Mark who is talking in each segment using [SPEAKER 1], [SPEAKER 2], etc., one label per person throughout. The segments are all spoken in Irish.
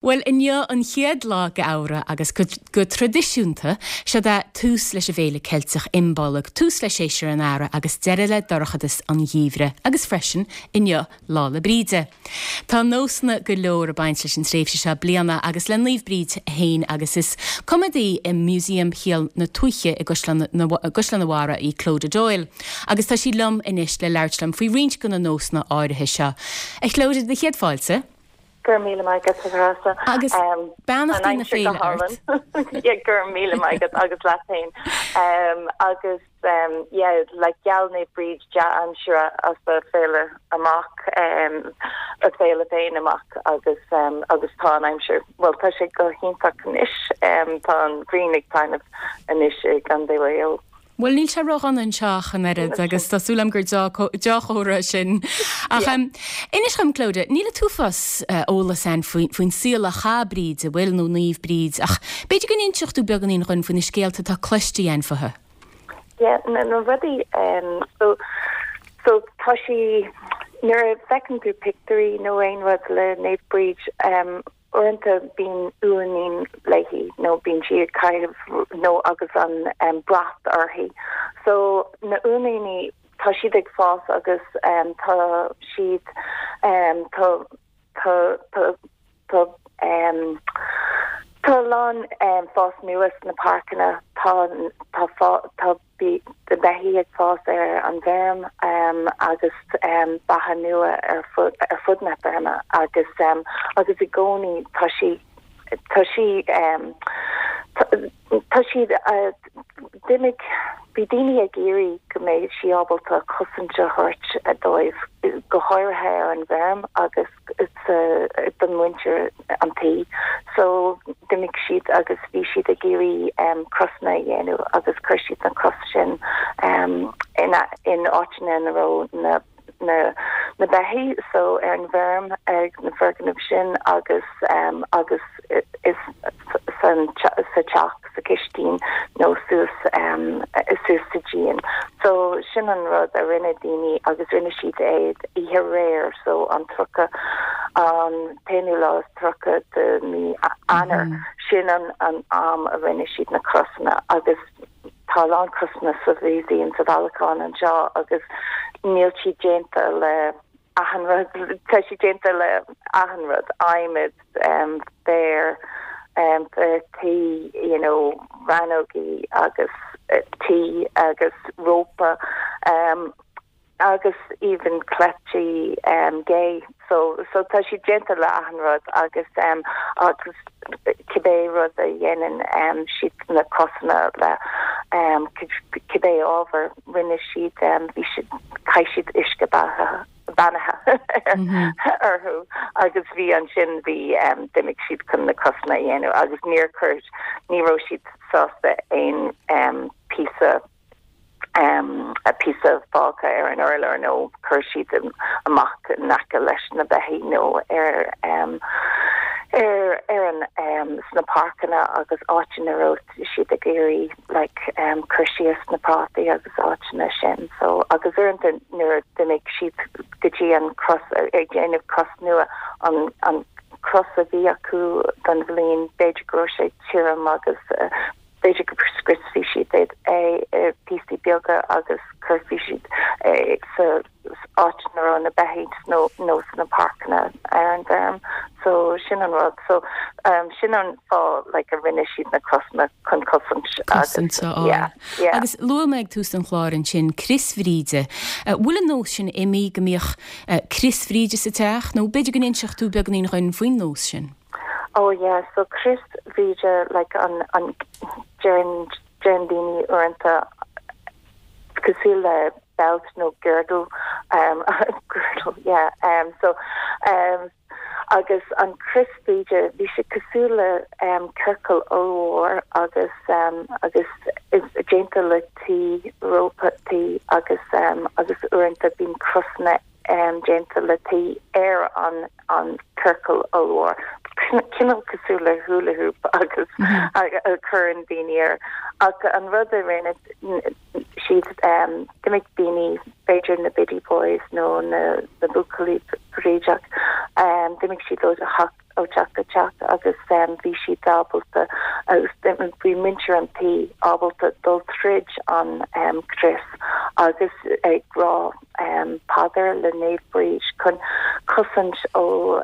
[SPEAKER 1] Bhuel, inniu an chéad lá d'Fheabhra agus go traidisiúnta, seod é tús leis an bhféile Ceilteach Imbolg, tús le séasúr an Earraigh agus deireadh le dorchadas an gheimhridh agus freisin, inniu, Lá 'le Bríde. Tá nósanna go leor ag baint leis an tréimhse seo bliana agus le Naomh Bríd féin agus is coimeádaí i Músaem Shíol na Tuaithe i gCaisleán an Bharraigh í Clodagh Doyle agus tá sí liom anois le labhairt liom faoi roinnt de na nósanna áirithe seo. A Chlodagh, do chéad fáilte.
[SPEAKER 2] Go raibh míle maith agat, a Threasa.
[SPEAKER 1] Agus beannachtaí na féile ort.
[SPEAKER 2] Yeah, go raibh míle maith agat agus leat féin. Agus yeah, like gheall Naomh Bríd dea-aimsire as a féile amach, a féile féin amach agus agus tá an aimsir, bhuel tá sé go hiontach anois, tá an ghrian ag taitneamh anois i gContae Mhaigh Eo.
[SPEAKER 1] Bhuel, níl sé ródhona anseo ach an oiread agus tá súil agam gur deá-chomhartha é sin. Ach inis dhom, Clodagh, níl an t-uafás eolas ann faoin saol a chaith Bríd, an bhfuil, nó Naomh Bríd, ach b'fhéidir go n-inseodh tú beagáinín dhúinn faoi na scéalta atá cloiste againn fúithi.
[SPEAKER 2] Yeah, na rudaí, so, so tá sí, nuair a fheiceann tú pictiúirí nó aon rud le Naomh Bríd, Uaireanta bíonn uainín léi nó bíonn sí ag caitheamh nó agus an brat uirthi. So na uainíní tá siad ag fás agus tá siad tá tá tá tá tá a lán fás nua sna páirceanna tá tá tá Bhí na beithígh ag fás ar an bhfeirm agus beatha nua ar fud na feirme agus agus i gcónaí tá sí tá sí tá siad d'imigh bhí daoine ag iarraidh go mbeidh sí ábalta cosaint a thabhairt dóibh go háirithe ar an bhfeirm agus don mhuintir an tí. So d'imigh siad agus bhí siad ag iarraidh crosanna a dhéanamh agus chuir siad na cros sin in in áiteanna ina raibh na na na beithígh so ar an bhfeirm ag na foirgnimh sin agus agus is san sa teach. sa chistín nó suas suas sa díon. So sin an rud a rinne daoine agus rinne siad é oíche aréir so an 30 an t-aonú lá is 30 de mí Eanáir sin an an am a rinne siad na crosanna agus tá a lán crosanna sa mhúsaem sa bhailiúchán anseo agus níl siad déanta le achan rud, tá siad déanta le achan rud, adhmad, féar, féar tí, you know, rannógaí agus tí agus rópa agus even cleití gé. So, so tá siad déanta le achan rud agus agus cibé rud a dhéanann siad na crosanna le cibé ábhar. Rinne siad, bhí siad, chaith siad uisce beatha, beannaithe orthu agus bhí ansin, bhí, d'imigh siad chun na crosanna a dhéanamh agus níor chuir, ní raibh siad sásta aon píosa, píosa fágtha ar an urlár nó chuir siad amach in aice leis na beithígh nó ar, ar, ar an, sna páirceanna agus áiteanna a raibh siad ag iarraidh like cur síos na prátaí agus áiteanna sin so agus uaireanta nuair a d'imigh siad go dtí an cros ag déanamh cros nua an an cros a bhí acu don bhliain b'fhéidir go raibh sé tirim agus b'fhéidir go scriosfaidh siad é i píosaí beaga agus cuirfidh siad é sa áit ina raibh na beithígh nó nó sna páirceanna ar an bhfeirm. So sin an rud. So sin an fáth like a rinne siad na crosanna chun cosaint
[SPEAKER 1] agus Cosaint a fháil. yeah, yeah. Agus luaigh mé ag tús an chláir ansin Crios Bhríde. Bhfuil an nós sin imithe go mbíodh Crios Bhríde sa teach nó b'fhéidir go n-inseodh tú beagáinín dhuinn faoin nós sin?
[SPEAKER 2] Oh yeah, so Crios Bhríde like an an deireann deireann daoine uaireanta cosúil le belt nó girdle um girdle yeah um so um agus an crios Bríde bhí sé cosúil le um ciorcal ollmhór agus um agus is déanta le tuí rópa tuí agus um agus uaireanta bíonn crosanna um déanta le tuí ar an an ciorcal ollmhór cineál cosúil le hula hoop agus a cuireann daoine air ach an rud a rinne. siad, d'imigh daoine, b'fhéidir na Biddy Boys nó na buachaillí brídeach, d'imigh siad ó theach ó teach go teach agus bhí siad ábalta agus bhí muintir an tí ábalta dul tríd an crios agus ag rá paidir le Naomh Bríd chun cosaint ó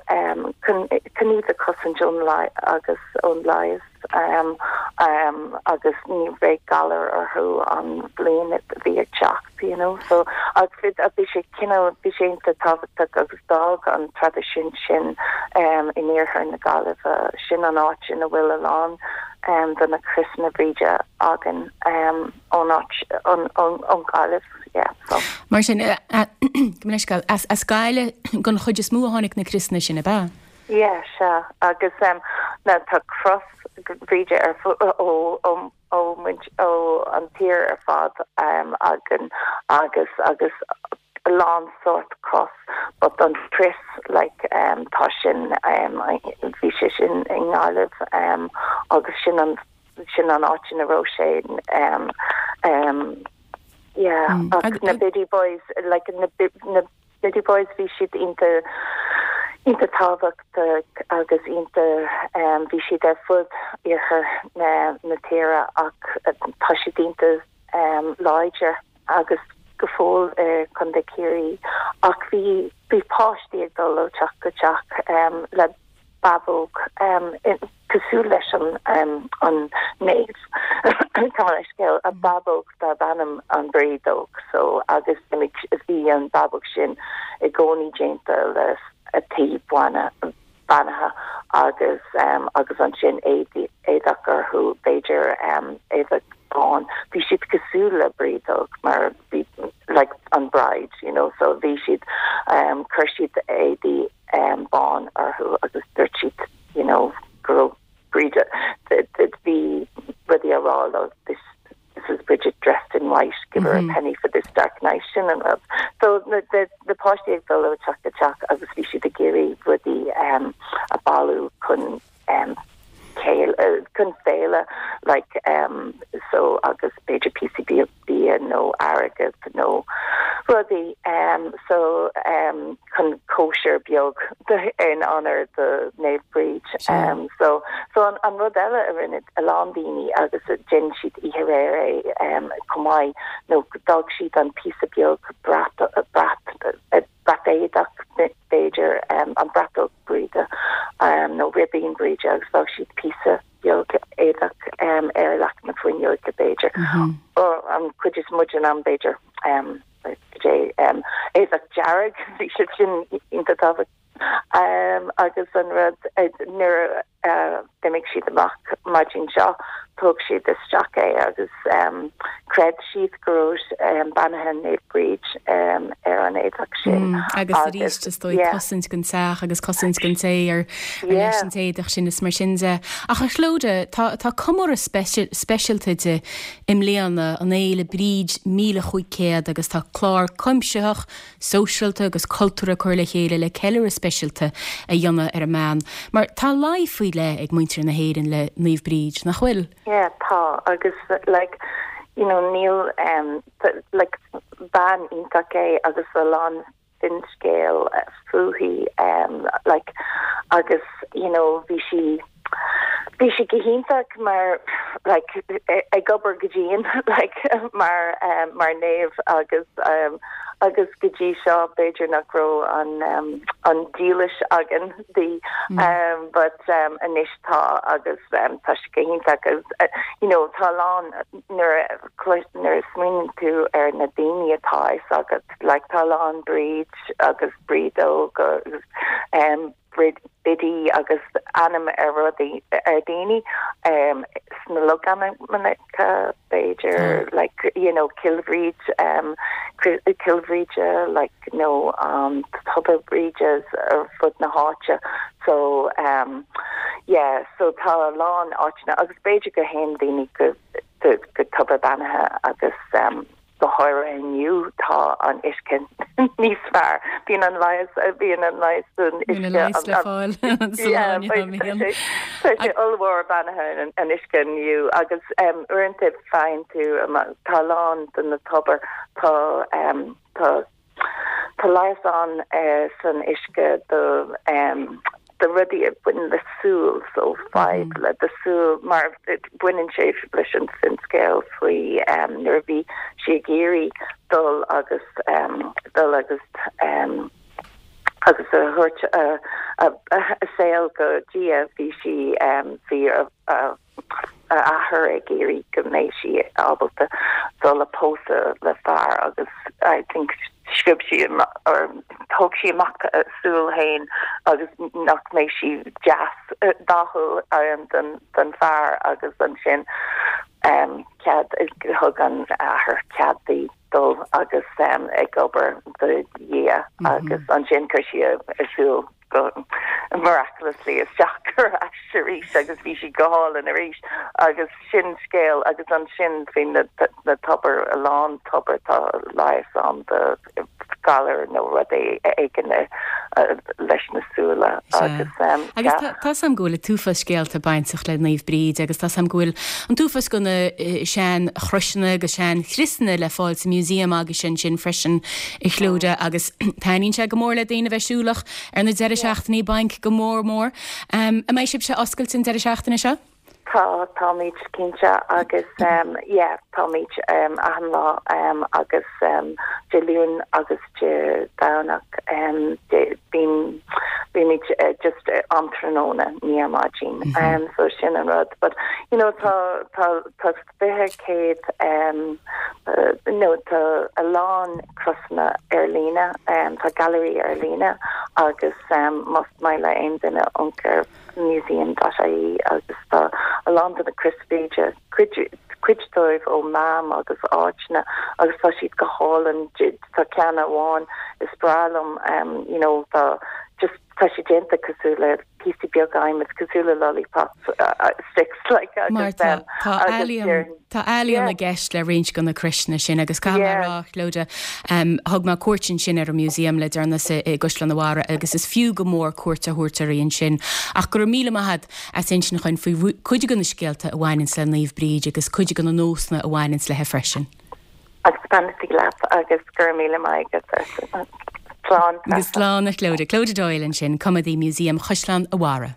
[SPEAKER 2] chun iad a chosaint ón agus ón leigheas agus ní bheidh galar orthu an bhliain a bhí ag teacht you know so agus bhí sé cineál bhí sé iontach tábhachtach agus d'fhág an traidisiún sin in iarthar na Gaillimhe sin an áit ina bhfuil a lán de na criosanna Bríde againn ón áit ón Ghaillimh yeah
[SPEAKER 1] so. Mar sin gabh mo leithscéal as Gaillimh den chuid is mó a tháinig na criosanna sin ab ea?
[SPEAKER 2] Yeah, sea. Agus now tá cros Bhríde ar ó ó ó muint ó an tír ar fad againn agus agus a lán sórt cros but an crios like tá sin bhí sé sin i nGaillimh agus sin an sin an áit ina raibh sé yeah ach na Biddy Boys like na na Biddy Boys, bhí siad iontach, iontach tábhachtach agus iontach, bhí siad ar fud iarthar na, na tíre ach tá siad iontach láidir agus go fóill i Contae Ciarraí ach bhí, bhí páistí ag dul ó teach go teach le bábóg cosúil leis an an naomh gabh mo leithscéal, a bábóg darb ainm an Brídeog so agus bhí an bábóg sin i gcónaí déanta le tuí beannaithe agus agus ansin éadach orthu b'fhéidir éadach bán bhí siad cosúil le brídeog mar bhí like an bride you know so bhí siad chuir siad éadaí bán orthu agus dúirt siad you know go raibh Bríd bhí rudaí á rá leo this this is Bridget dressed in white give her a penny for this dark night sin an rud. So na na páistí ag dul ó teach go teach agus bhí siad ag iarraidh rudaí a bailiú chun chun féile like so agus b'fhéidir píosaí bia bia nó airgead nó rudaí so chun cóisir beag in onóir do Naomh Bríd. So so an an rud eile a rinne a lán daoine agus déanann siad oíche aréir é chomh maith nó d'fhág siad an píosa beag brat brat brat éadach, b'fhéidir, an bratóg Bríde nó ribín Bríde agus d'fhág siad píosa beag éadach ar leac na fuinneoige, b'fhéidir. An chuid is mó den am, b'fhéidir, éadach dearg, bhí sé sin iontach tábhachtach. Agus an rud, nuair a d'imigh siad amach maidin seo, thóg siad isteach é agus chreid siad go raibh beannaithe Naomh Bríd ar an éadach sin.
[SPEAKER 1] Agus arís, is dóigh, cosaint don teach agus cosaint don té ar leis an t-éadach sin is mar sin de. Ach a Chlodagh, tá comóradh speisialta di i mbliana, an Fhéile Bríd 1500 agus tá clár cuimsitheach, sóisialta agus cultúrtha curtha le chéile le ceiliúradh speisialta a dhéanamh ar an mbean, mar tá luí faoi leith ag muintir na hÉireann le Naomh Bríd, nach bhfuil?
[SPEAKER 2] Yeah, tá, agus like, you know, níl, em, like, bean iontach é agus a lán finscéal fúithi, em, like, agus, you know, bhí sí, Bhí sí go hiontach mar like ag obair go dian like mar mar naomh agus agus go dtí seo b'fhéidir nach raibh an an dílis againn di but anois tá agus tá sí go hiontach agus you know tá a lán nuair a nuair a smaoiníonn tú ar na daoine atá a fhios agat like tá a lán Bríd agus Brídóg agus Biddy agus ainm ar rudaí ar daoine sna logainmneacha b'fhéidir like you know Cill Bhríd Cill Bhríde like nó Tobar Bríde ar fud na háite so yeah so tá a lán áiteanna agus b'fhéidir go théann daoine go go tobar beannaithe agus. Go háirithe inniu tá an uisce níos fearr. Bíonn an leigheas, bíonn an leigheas san uisce.
[SPEAKER 1] Bíonn an leigheas le fáil sa lá inniu,
[SPEAKER 2] bíonn. Tá sé ollmhór beannaithe an uisce inniu agus uaireanta faigheann tú, tá a lán de na tobair, tá tá Tá leigheas ann san uisce do do rudaí a bhaineann le súil, so fadhb le do súil, mar baineann sé leis an finscéal faoi nuair a bhí sí ag iarraidh dul agus dul agus agus a thabhairt a saol go Dia, bhí sí bhí a a athair ag iarraidh go mbeidh sí ábalta dul a pósadh le fear agus I think sciob sí or thóg sí amach a súil féin agus nach mbeidh sí deas dathúil don don fear agus ansin cead thug an athair cead di dul agus ag obair do Dhia agus ansin chuir sí a súil go miraculously isteach ar ais arís agus bhí sí go hálainn arís agus sin scéal agus ansin faoi na na tobair a lán tobar tá leigheas ann do galar nó rud éigin leis na súile
[SPEAKER 1] agus Agus tá 's a'm go bhfuil an t-uafás scéalta bainteach le Naomh Bríd agus tá 's a'm go bhfuil an t-uafás go na sean chroiseanna agus sean chriosanna le fáil sa museum agaibhse ansin freisin a Chlodagh agus taitníonn sé go mór le daoine a bheith siúlach ar na deireadh seachtainí bainc go mór mór. An mbeidh sibhse oscailte an deireadh seachtaine seo?
[SPEAKER 2] Tá, táimid cinnte agus yeah, táimid achan lá agus Dé Luain agus Dé Domhnach bíonn, bímid just am tráthnóna, ní ar maidin. So sin an rud. But you know tá, tá, tá 20 100 nó tá a lán crosanna ar líne, tá gailearaí ar líne agus más maith le aon duine amharc ar museum.ie agus tá a lán de na Crois Bhríde, cuid dóibh ó Mam agus áiteanna agus tá siad go hálainn, tá ceann amháin is breá liom you know tá just tá sé déanta cosúil le píosaí beaga adhmaid cosúil le lollipop sticks like agus
[SPEAKER 1] Mar tá tá ealaíon tá ealaíon i gceist le roinnt de na croiseanna sin agus caithfidh mé a rá Clodagh thug mé cuairt ansin ar an museum le deireanas i gCaisleán an Bharraigh agus is fiú go mór cuairt a thabhairt uirthi ansin ach go raibh míle maith agat as insint dhúinn faoi cuid de na scéalta a bhaineanns le Naomh Bríd agus cuid de na nósanna a bhaineanns léi freisin.
[SPEAKER 2] Agus beannachtaí leat agus go raibh míle maith agat. Slán.
[SPEAKER 1] Agus slán a Chlodagh. Clodagh Doyle ansin, Coimeádaí Museum Chaisleán an Bharraigh.